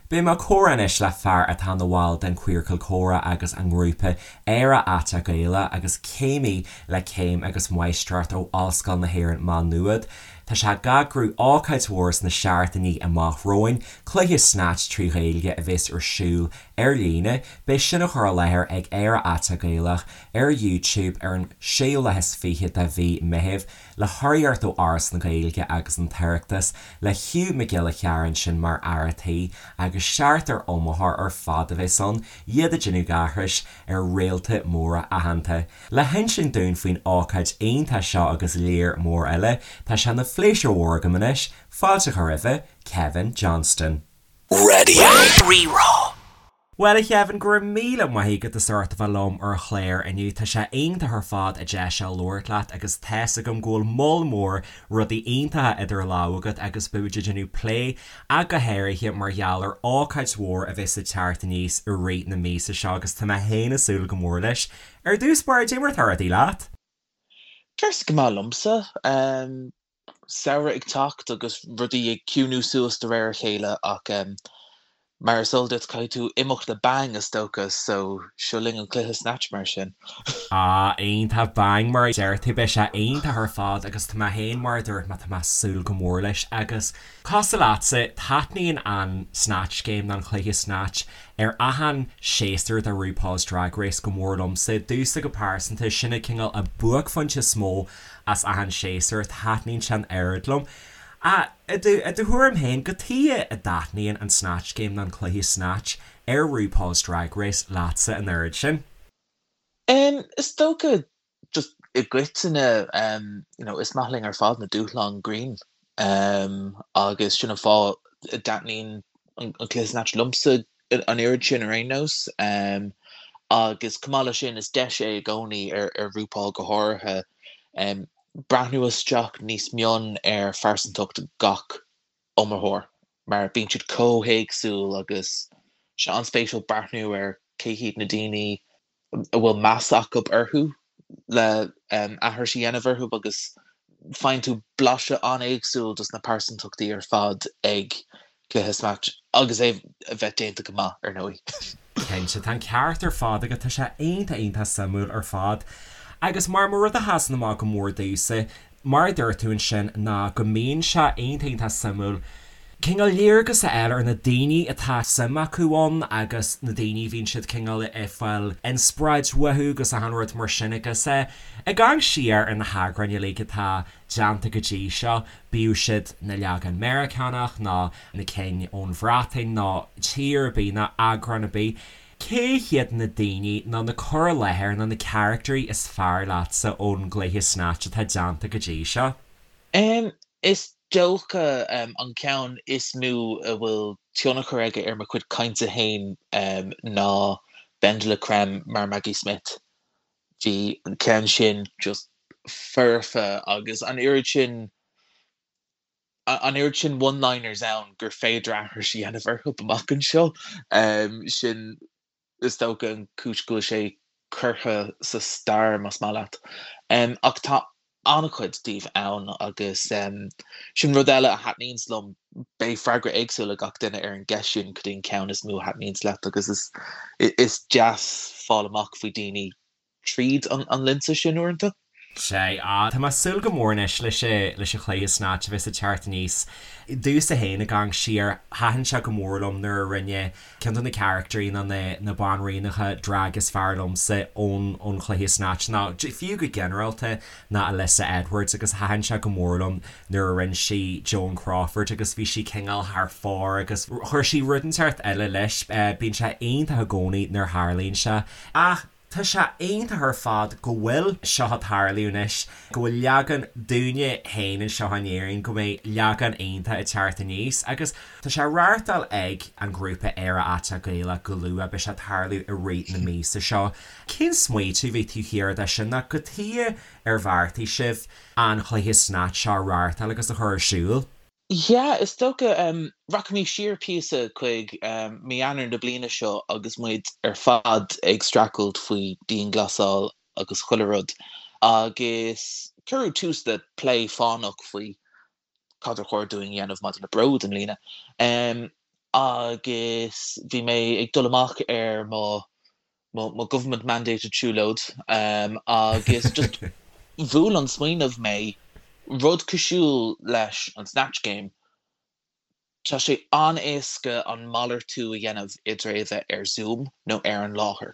Beidh mé ag comhrá anois le fear atá ina bhall den Queercal Comhrá agus an ngrúpa Éire Aiteach Gaelach agus céimí le céim agus máistreacht ó Ollscoil na hÉireann Má Nuad. Tá sé ag eagrú ócáid mhór sna seachtainí amach romhainn, cluiche Snatch 3 Ghaeilge a bheas ar siúl ar líne. Beidh sin á chur i láthair ag Éire Aiteach Gaelach ar YouTube ar an séú lá is 20 de mhí Meithimh. Le hurraíocht ó Fhoras na Gaeilge agus an tOireachtas, le Hugh Mac Giolla Chearra ansin mar fhear a' tí, agus seachtar iomaitheoir ar fad a bheas ann, iad ag déanamh aithris ar réalta móra aitheanta. Le hinsint dúinn faoin ócáid iontach seo agus léar mór eile, tá sé ina phléisiúr mhór agam anois fáilte a chur roimhe, Kevin Johnston. Radio Rí-Rá. Bhuel, a Chevin, go raibh míle maith agat as ucht a bheith liom ar an chlár inniu. Tá sé iontach ar fad an deis seo labhairt leat agus tá's agam go bhfuil moll mór rudaí iontacha idir lámha agat agus beidh muid ag déanamh plé ach go háirithe mar gheall ar ócáid mhór a bheas ag teacht aníos i rith na míosa seo agus tá mé féin ag súil go mór leis. Ar dtús báire, cad é mar atá rudaí leat? Tá go maith liomsa. Samhradh ag teacht agus rudaí ag ciúnú suas de réir a chéile ach mar is eol duit caithfidh tú imeacht le bang is dócha so seo linn an cluiche Snatch mar sin. Ah iontach, bang mar a deir tú, beidh sé iontach ar fad agus tá mé féin mar a dúirt mé tá mé ag súil go mór leis agus cosúil leatsa taitníonn an Snatch Game nó an cluiche Snatch ar achan séasúr de RuPaul's Drag Race go mór liomsa, domhsa go pearsanta sin an cineál an buaicphointe is mó as achan séasúr, taitníonn sé an oiread liom. Ach i do i do thuairim féin, cad chuige a dtaitníonn an Snatch Game nó an cluiche Snatch ar RuPaul's Drag Race leatsa an oiread sin? Em, is dócha just i gcoitinne, em, you know, is maith linn ar fad na dúshláin grinn, em, agus sin an fáth a dtaitníonn an cluiche Snatch liomsa an oiread sin ar aon nós. Agus chomh maith leis sin, is deis é i gcónaí, ar RuPaul go háirithe, breathnú isteach níos mion ar phearsantacht gach iomaitheoir, mar bíonn siad chomh héagsúil agus sé an-spéisiúil breathnú ar cé hiad na daoine a bhfuil meas acu orthu le aithris a dhéanamh orthu agus faigheann tú blaiseadh an-éagsúil dos na pearsantachtaí ar fad ag cluiche Snatch agus é a bheith déanta go maith, ar ndóigh. Cinnte, tá an ceart ar fad agat, tá sé iontach iontach suimiúil ar fad. Agus mar mar rud a sheasann amach go mór domhsa, mar a dúirt tú ansin, ná go mbíonn sé iontach iontach suimiúil cineál léargas a fháil ar na daoine atá suim acu ann agus na daoine a bhíonn siad cineál ag fáil inspioráid uathu agus achan rud mar sin agus ag amharc siar ar na heagráin uilig atá déanta go dtí seo, bíodh siad na leagan Meiriceánach nó na cinn ón Bhreatain nó tír ar bith nó eagrán ar bith. Cé hiad na daoine nó na cur i láthair nó na caractairí is fearr leatsa ón gcluiche Snatch atá déanta go dtí seo? Em, is dócha an ceann is mó a bhfuil tionchar aige ar mo chuid cainte féin ná BenDeLaCreme mar Maggie Smith. Bhí an ceann sin just foirfe agus an oiread sin an oiread sin one-liners ann gur féidir aithris a dhéanamh orthu amach anseo. Sin, is dócha, an chúis go bhfuil sé curtha sa stair, más maith leat. Ach tá an-chuid díobh ann agus sin rud eile a thaitníonns liom, beidh freagra éagsúil ag gach duine ar an gceist sin, cad é an ceann is mó a thaitníonns leat agus is deas fáil amach faoi daoine tríd an lionsa sin uaireanta. Sea, tá mé ag súil go mór anois leis leis an chluiche Snatch a bheas ag teacht aníos. Domhsa féin ag amharc siar, thaitin sé go mór liom nuair a rinne ceann de na caractairí nó na na banríonacha drag is fearr liomsa ón ón chluiche Snatch nó fiú go ginearálta ná Alyssa Edwards agus thaitin sé go mór liom nuair a rinne sí Joan Crawford agus bhí sí cineál thar fóir agus chuir sí rud inteacht eile leis. Bíonn sé iontach i gcónaí nuair a tharlaíonn sé. Ach tá sé iontach ar fad go bhfuil seo ag tarlú anois, go bhfuil leagan dúinne féin anseo in Éirinn, go mbeidh leagan iontach ag teacht aníos agus tá sé á reáchtáil ag an ghrúpa Éire Aiteach Gaelach go luath, beidh sé ag tarlú i rith na míosa seo. Cén smaoitiú a bhí taobh thiar de sin nó cad chuige ar bheartaigh sibh an chluiche Snatch seo a reáchtáil agus a chur ar siúl? Yeah, is dócha. Rachaimid siar píosa chuig mí Eanáir na bliana seo agus muid ar fad ag streachailt faoi dianghlasáil agus chuile rud agus cuireadh tús le plé fánach faoi cad ar chóir dúinn a dhéanamh maidir le Bród i mbliana. Agus bhí mé ag dul amach ar mo mo government mandated siúlóid agus just bhuail an smaoineamh mé, rud cosúil leis an Snatch Game, Tá sé an-éasca an malartú a dhéanamh idir é a bheith ar Zoom nó ar an láthair.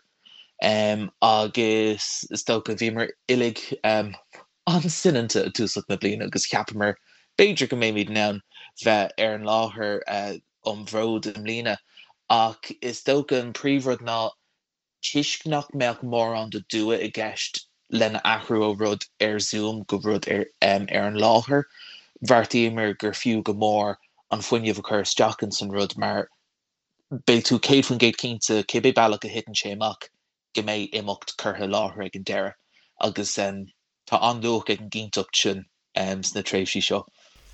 Agus is dócha, bhíomar uilig an-soineanta i dtúsach na bliana agus cheapamar b'fhéidir go mbeimid in ann bheith ar an láthair um Bhród i mbliana. Ach is dócha an príomhrud ná toisc nach mbeadh mórán de dua i gceist lena athrú ó rud ar Zoom go rud ar an láthair, bheartaíomar gur fiú go mór an fuinneamh a chur isteach ins an rud mar beidh tú 100% cinnte, cibé bealach a thiteann sé amach, go mbeidh imeacht curtha i láthair ag an deireadh agus tá an-luach ag an gcinnteacht sin sna tréimhsí seo.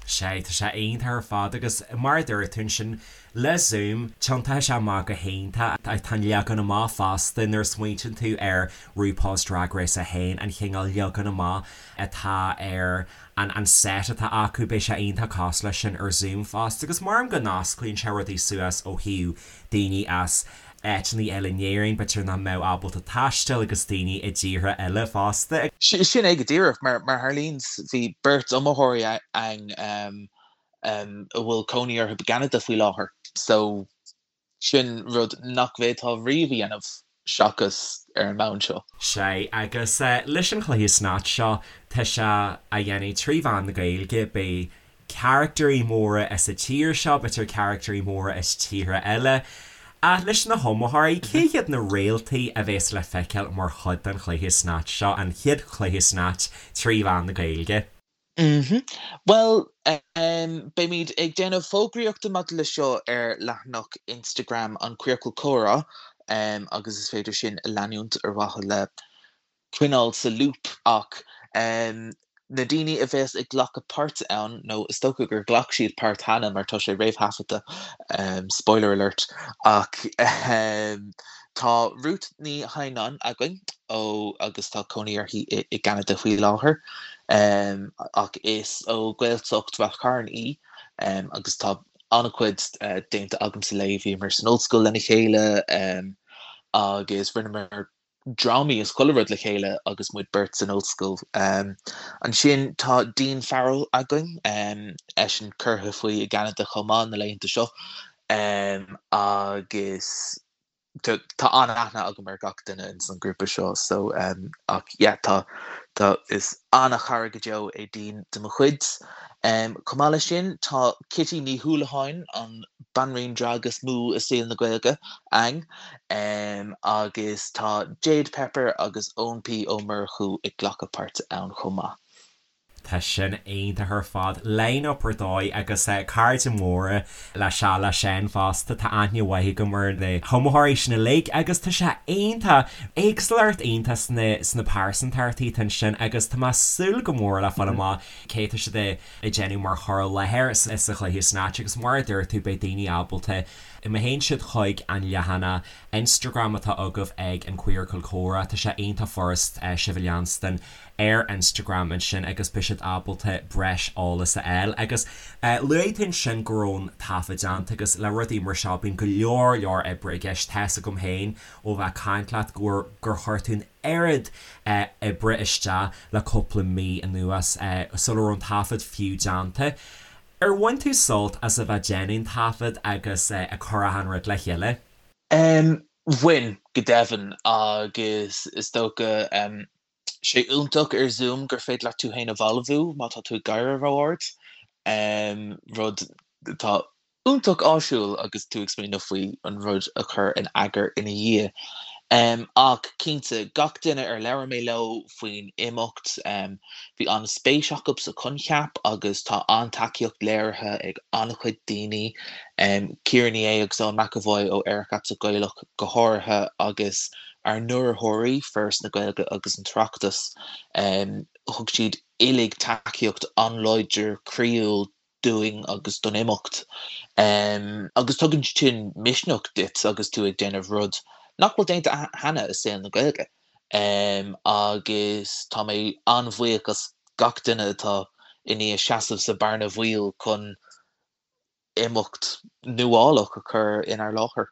Sea, tá sé iontach ar fad agus mar a dúirt tú ansin, le Zoom, tiontaíonn sé amach go hiontach. Tá an leagan amach fosta, nuair a smaointíonn tú ar RuPaul's Drag Race 1, an chineál leagan amach atá ar an set atá acu, beidh sé iontach cosúil leis sin ar Zoom fosta agus maram go n-osclaíonn sé rudaí suas ó thaobh daoine as áiteanna eile in Éirinn, b'fhéidir nach mbeadh ábalta taisteal agus daoine i dtíortha eile fosta. Sin é go díreach. Mar a tharlaíonn, bhí beirt iomaitheoirí againn a bhfuil cónaí orthu i gCeanada faoi láthair, so sin rud nach bhféadfá riamh a dhéanamh seachas ar an mbonn seo. Sea, agus leis an chluiche Snatch seo, tá sé á dhéanamh trí mheán na Gaeilge, beidh carachtairí móra as an tír seo, b'fhéidir carachtairí móra as tíortha eile. Ach leis na hiomaitheoirí, cé hiad na réaltaí a bheas le feiceáil mar chuid den chluiche Snatch seo, an chéad chluiche Snatch trí mheán na Gaeilge? Bhuel, beimid ag déanamh fógraíochta maidir le seo ar leathanach Instagram an Queercal Comhrá agus is féidir sin a leanúint ar mhaithe le coinneáil sa loop ach na daoine a bheas ag glacadh páirte ann, nó is dócha gur ghlac siad páirt cheana mar tá sé réamhthaifeadta, spoiler alert, ach tá Ruth Ní Hadhnáin againn ó agus tá cónaí uirthi i gCeanada faoi láthair ach is ó Ghaeltacht Rath Chairn í agus tá an-chuid déanta agamsa léi, bhíomar san ollscoil lena chéile agus rinneamar drámaí is chuile rud le chéile agus muid beirt san ollscoil. Ansin tá Dean Farrell againn, eisean curtha faoi i gCeanada chomh maith na laethanta seo agus tá an-aithne agam ar gach duine ins an grúpa seo so ach yeah tá tá is an-chara go deo é Dean de mo chuid. Chomh maith leis sin tá Kitty Ní Houlihan, an banríon drag is mó i saol na Gaeilge, againn. Agus tá Jade Pepper agus Eoin P Ó Murchú ag glacadh páirte ann chomh maith. Tá sin iontach ar fad. Line-up ar dóigh agus cairde móra le sea le Seán fosta. Tá aithne mhaith agam ar na hiomaitheoirí sin uilig agus tá sé iontach. Éagsúlacht iontach sna sna pearsantachtaí atá ansin agus tá mé ag súil go mór le fáil amach cé tá siad ag déanamh mar chur i láthair sa chluiche Snatch agus mar a dúirt tú beidh daoine ábalta Má théann siad chuig an leathanach Instagram atá agaibh ag an Queercal Comhrá, tá sé iontach furast sibh a leanstan ar Instagram ansin agus beidh siad ábalta breis eolas a fháil. Agus luaigh tú ansin go raibh an taifead déanta agus le rudaí mar seo bíonn go leor leor oibre i gceist. Tá's agam féin ó bheith ag caint leat go gur chuir tú an oiread oibre isteach le cúpla mí anuas sula raibh an taifead fiú déanta. Ar bhain tú sult as a bheith déanamh an taifead agus ag cur achan rud le chéile? Bhain, go deimhin, agus is dócha, sé iontach ar Zoom gur féidir leat tú féin a bhalbhú má tá tú ag gáire ró-ard, rud atá iontach áisiúil agus tú ag smaoineamh faoi an rud a chur in eagar ina dhiaidh. Ach cinnte, gach duine ar labhair mé leo faoin imeacht, bhí an-spéis acu sa choincheap agus tá an-tacaíocht léirithe ag an-chuid daoine, Ciara Ní É agus Eoin McEvoy ó Aerach Aiteach Gaelach go háirithe agus ár n-urraitheoirí, Foras na Gaeilge agus an tOireachtas. Thug siad uilig tacaíocht an-láidir croíúil dúinn agus don imeacht. Agus tugann sin misneach duit agus tú ag déanamh rud nach bhfuil déanta cheana i saol na Gaeilge. Agus tá mé an-bhuíoch as gach duine atá i ndiaidh seasamh sa bhearna bhaoil chun. imeacht nuálach a chur inár láthair.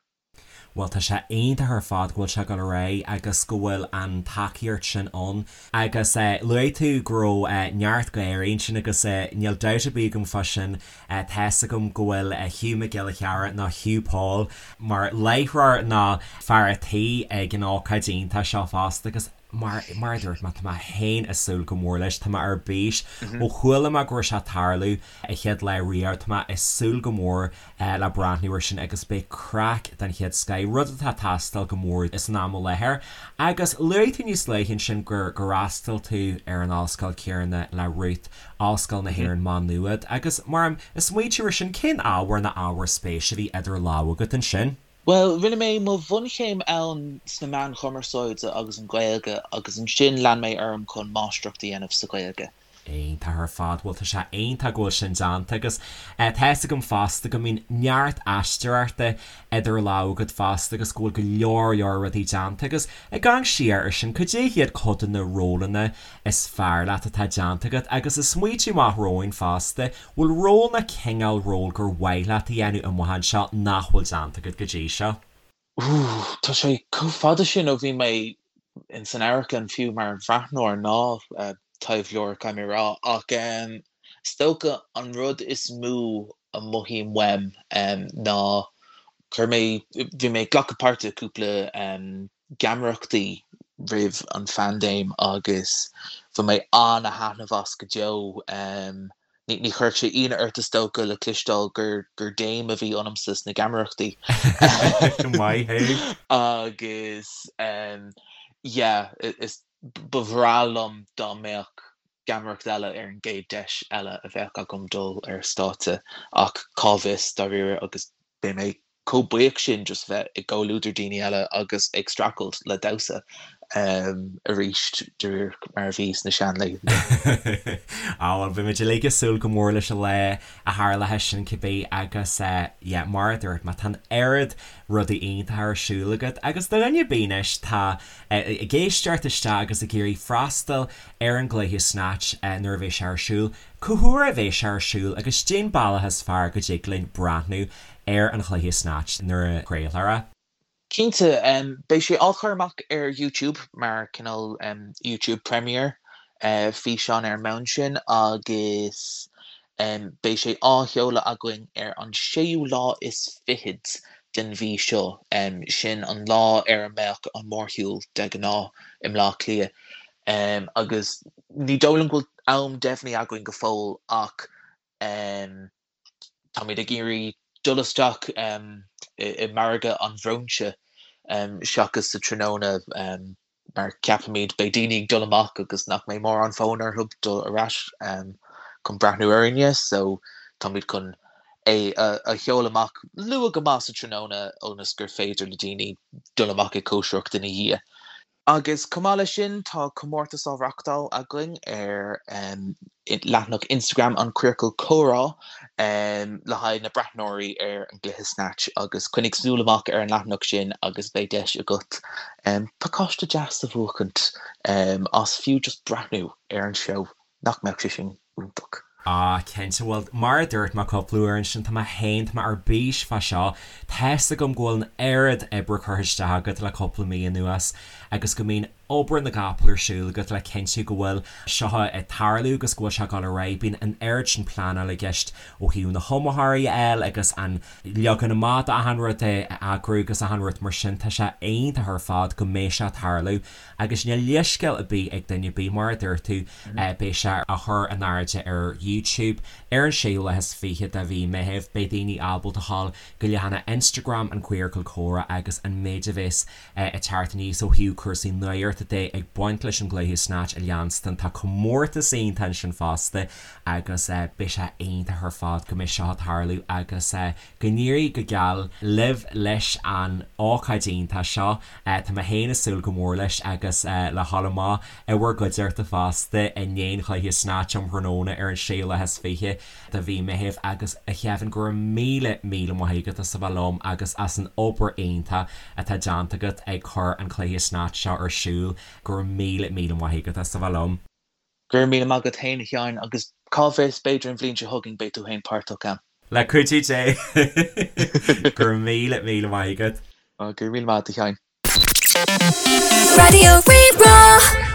Bhuel, tá sé iontach ar fad go bhfuil sé ag dul ar aghaidh agus go bhfuil an tacaíocht sin ann. Agus luaigh tú go raibh neart gáirí ansin agus níl dabht ar bith agam fá sin. Tá's agam go bhfuil Hugh Mac Giolla Chearra nó Hugh Paul mar láithreoir nó fear a' tí ag an ócáid iontach seo fosta agus Mar mar a dúirt mé, tá mé féin ag súil go mór leis, tá mé ar bís. Ó chuala mé go raibh sé ag tarlú an chéad lá riamh, tá mé ag súil go mór le breathnú air sin agus beidh craic den chéad scoith, rud atá ag teastáil go mór san am i láthair. Agus luaigh tú níos luaithe ansin gur gur fhreastail tú ar an ollscoil chéanna le Ruth, Ollscoil na hÉireann Maigh Nuad, agus mar ag smaointiú air sin, cén ábhar nó ábhair spéise a bhí idir lámha agat ansin? Bhuel, rinne mé mo bhunchéim ann sna meáin chumarsáide agus an Ghaeilge agus ansin lean mé orm chun máistreacht a dhéanamh sa Ghaeilge. Iontach ar fad. Bhuel, tá sé iontach go bhfuil sin déanta agus tá fhios agam fosta go mbíonn neart aisteoireachta idir lámha agat fosta agus go bhfuil go leor leor rudaí déanta agus ag amharc siar air sin, cad é hiad cuid de na rólanna is fearr leat atá déanta agat agus ag smaointiú amach romhainn fosta, Bhfuil ról nó cineál ról gur mhaith leat a dhéanamh amach anseo nach bhfuil déanta agat go dtí seo? Ooh, tá sé chomh fada sin ó bhí mé in san amharclann fiú mar bhreathnóir ná taibheoir, caithfidh mé a rá, ach is dócha an rud is mó a mothaím uaim ná chuir mé, bhí mé ag glacadh páirte i cúpla geamaireachtaí roimh an phaindéim agus bhain mé an-thaitneamh as go deo. Ní chuirfeadh sé ionadh ort is dócha le cloisteáil gur gur dame a bhí ionamsa sna geamaireachtaí. Maith thú! Agus yeah, is ba bhreá liom dá mbeadh geamaireacht eile ar an gcéad deis eile a bheadh agam dul ar stáitse ach cá bhfios dáiríre agus beidh mé chomh buíoch sin just bheith i gcomhluadar daoine eile agus ag streachailt le damhsa arís de réir mar a bhí sna seanlaethanta. Á bhuel, beidh muid uilig ag súil go mór leis an lá a tharlóidh sin cibé agus yeah, mar a dúirt mé, tá an oiread rudaí iontacha ar siúl agat agus do dhuine ar bith anois atá ag éisteacht isteach agus ag iarraidh freastal ar an gcluiche Snatch nuair a bheidh sé ar siúl, cá huair a bheidh sé ar siúl agus cén bealach is fearr go dtig linn breathnú ar an chluiche Snatch nuair a chraolfar é. Cinnte, beidh sé á chur amach ar YouTube mar cineál YouTube Premiere, físeán ar an mbonn sin agus beidh sé á sheoladh againn ar an séú lá is fichead den mhí seo, sin an lá ar a mbeadh an mórshiúl de ghnáth i mBleá Cliath. Agus ní dóigh liom go bhfuil am deimhnithe againn go fóill ach Táimid ag iarraidh dul isteach i margadh an bhróinse seachas sa tráthnóna mar ceapaimid beidh daoine ag dul amach agus nach mbeidh mórán fonn orthu dul ar ais chun breathnú orainne so táimid chun é a sheoladh amach luath go maith sa tráthnóna ionas gur féidir le daoine dul amach ag cóisireacht ina dhiaidh. Agus chomh maith leis sin, tá comórtas á reachtáil againn ar leathanach Instagram An Queercal Comhrá le haghaidh na breathnóirí ar an gcluiche Snatch agus coinnigh súil amach ar an leathanach sin agus beidh deis agat pacáiste deas a bhuachaint as fiú just breathnú ar an seó. Nach mbeadh sé sin iontach? Ah, cinnte. Bhuel, mar a dúirt mé cúpla uair ansin, tá mé féin, tá mé ar bís fá seo. Tá's agam go bhfuil an oiread oibre curtha isteach agat le cúpla mí anuas agus go mbíonn obair na gcapall ar siúl agat le cinntiú go bhfuil seo ag tarlú agus go bhfuil sé ag dul ar aghaidh. Bíonn an oiread sin pleanáil i gceist ó thaobh na hiomaitheoirí a fháil agus an leagan amach d'achan rud a eagrú agus achan rud mar sin. Tá sé iontach ar fad go mbeidh sé ag tarlú Agus níl leithscéal ar bith ag duine ar bith, mar a dúirt tú, beidh sé á chur in airde ar YouTube ar an séú lá is fiche de mhí Meithimh. Beidh daoine ábalta a ghabháil go leathanach Instagram an Queercal Comhrá agus an méid a bheas ag teacht aníos ó thaobh cúrsaí nuachta de ag baint leis an gcluiche Snatch a leanstan. Tá comórtas iontach ansin fosta agus beidh sé iontach ar fad go mbeidh seo ag tarlú agus Go n-éirí go geal libh leis an ócáid iontach seo. Tá mé féin ag súil go mór leis agus le dhul amach i bhur gcuideachta fosta i ndiaidh an chluiche Snatch um thráthnóna ar an séú lá is fiche de mhí Meithimh. Agus a Kevin, go raibh míle míle maith agat as a bheith liom agus as an obair iontach atá déanta agat ag cur an cluiche Snatch seo ar siúl. Go raibh míle míle maith agat as a bheith liom. Go raibh míle maith agat féin a Sheáin agus cá bhfios, b'fhéidir an bhliain seo chugainn beidh tú féin páirteach ann. Le cuidiú Dé. Go raibh míle, míle maith agat. Go raibh míle maith agat a Sheáin. Raidió Rí-Rá.